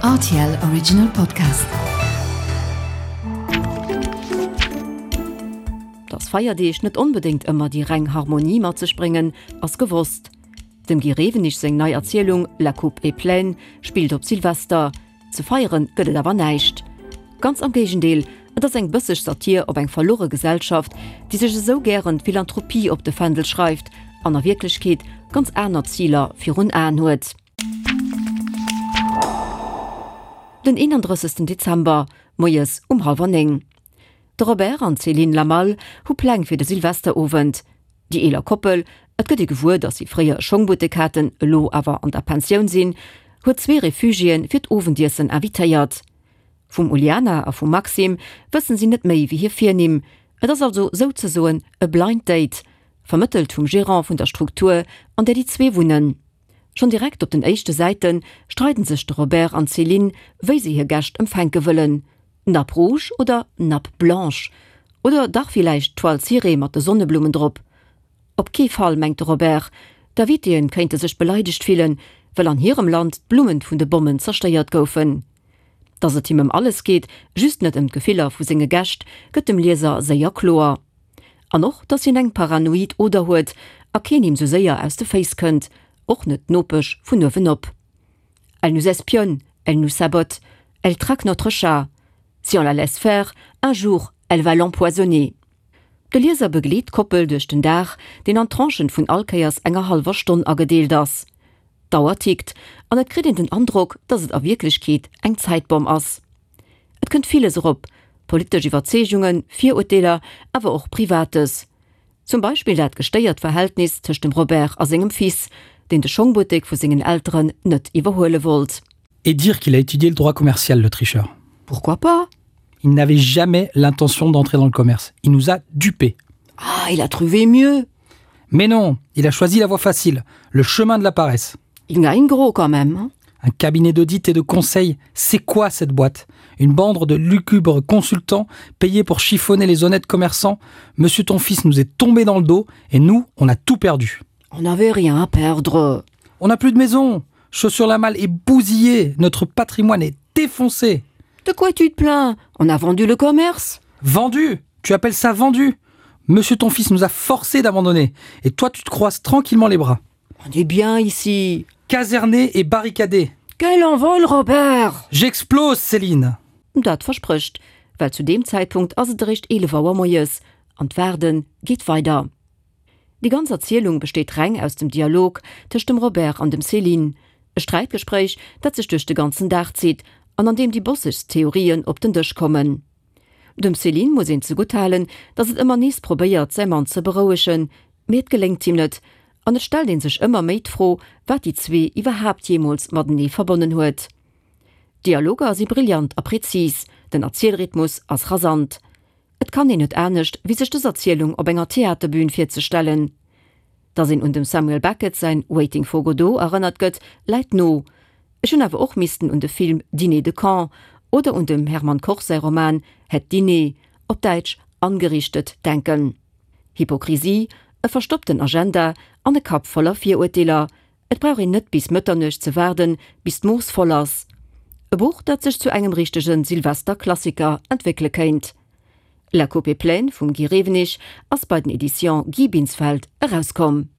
Rtl Original Podcast. Dass Feierdeeg net onbedéngt ëmmer déi reng Harmonie mat sech bréngen, ass gewosst. Dem Guy Rewenig seng nei Erzielung La coupe est pleine spillt op Silvester. Ze feiere gëtt et awer näischt. Ganz am Géigendeel, et ass eng bësseg Satir op eng verluere Gesellschaft, déi sech esou gären d'Philanthropie op de Fändel schreift an a Wierklechkeet ganz aner Ziler virun Aen huet. Den 31. Dezember, moies um hallwer 9. De Robert an d'Céline Lamal hu Pläng fir de Silvesterowend. Déi eeler Koppel, et gëtt ee gewuer, datt si fréier e Schongbuttek haten, elo awer an der Pensioun sinn, huet zwee Refugiéen fir d'Owendiessen invitéiert. Vum Uliana a vum Maxim wëssen si net méi wéi hir Virnimm. Et ass also souzesoen e Blind Date, vermëttelt vum Gerant vun der Struktur, an där déi zwee wunnen. Schonn direkt op den éischte Säite streiden sech de Robert an d'Céline, wéi se hir Gäscht empfänke wëllen. Nappe rouge oder Nappe blanche? Oder dach villäicht Toile cirée mat de Sonneblummen drop? Op kee Fall, mengt de Robert. D'Invitéen kéinte sech beleidegt fillen, well an hirem Land d'Blummen vun de Bommen zerstéiert goufen. Dass et him ëm alles geet, just net ëm d'Gefiller vu senge Gäscht, gëtt dem Lieser séier kloer. An och, dass hien eng paranoid Oder huet a keen him sou séier aus de Féiss kënnt, och net d'Nopesch vun uewenop. Elle nous espionne, elle nous sabote, elle traque notre chat. Si on la laisse faire, un jour, elle va l'empoisonner. De Lieser begleet d'Koppel duerch den Dag, deen an Tranchen vun all Kéiers enger hallwer Stonn agedeelt ass. D'Auer tickt, an et kritt een den Androck, dass et a Wierklechkeet eng Zäitbomm ass. Et kënnt villes erop, politesch Iwwerzeegungen, Virurteeler, awer och Privates. Zum Beispill dat gestéiert Verhältnis tëscht dem Robert a sengem Fils, deen de Schongbuttek vu sengen Elteren net iwwerhuele wollt. Et dire qu'il a étudié le droit commercial, le tricheur. Pourquoi pas? Il n'avait jamais l'intention d'entrer dans le commerce. Il nous a dupés. Ah, il a trouvé mieux. Mais non, il a choisi la voie facile, le chemin de la paresse. Il gagne gros quand même. Hein. Un cabinet d'audit et de conseil, c'est quoi cette boîte Une bande de lucubres consultants payés pour chiffonner les honnêtes commerçants. Monsieur ton fils nous est tombé dans le dos et nous, on a tout perdu. On n'avait rien à perdre. On n'a plus de maison. Chaussure la malle est bousillée, notre patrimoine est défoncé. De quoi tu te plains On a vendu le commerce. Vendu Tu appelles ça vendu Monsieur ton fils nous a forcé d'abandonner et toi tu te croises tranquillement les bras. On est bien ici. Caserné et barricadé. Quel envol Robert J'explose Céline. Dat versprécht, well zu deem Zäitpunkt ass et eréischt 11 Auer moies an d'Waarde geet weider. Déi ganz Erzielung besteet reng aus dem Dialog tëscht dem Robert an dem Céline, e Sträitgespréich, dat sech duerch de ganzen Dag zitt an an deem déi bossegst Theorien op den Dësch kommen. Dem Céline muss een zegutt halen, datt et ëmmer nees probéiert, säi Mann ze berouegen, mee et geléngt him net an et stellt ee sech ëmmer méi d'Fro, wat déi zwee iwwerhaapt jeemools matenee verbonnen huet. D'Dialoger si brillant a prezis, den Erzielrhythmus ass rasant. Et kann een net anescht, wéi sech dës Erzielung op enger Theaterbün virzestellen. Datt een un dem Samuel Beckett säin Waiting for Godot erënnert gëtt, läit no. Ech hunn awer och missten un de Film Dîner de cons oder un dem Hermann Koch säi Roman Het Diner, op Däitsch Angerichtet, denken. Hypokrisie, e verstoppten Agenda an e Kapp voller Virurteeler, et brauch een net bis Mëtternuecht ze waarden, bis d'Mooss voll ass. E Buch, dat sech zu engem richtege Silvester-Klassiker entwéckele kéint. La Coupe est pleine vum Guy Rewenig ass bei den Editions Guy Binsfeld erauskomm.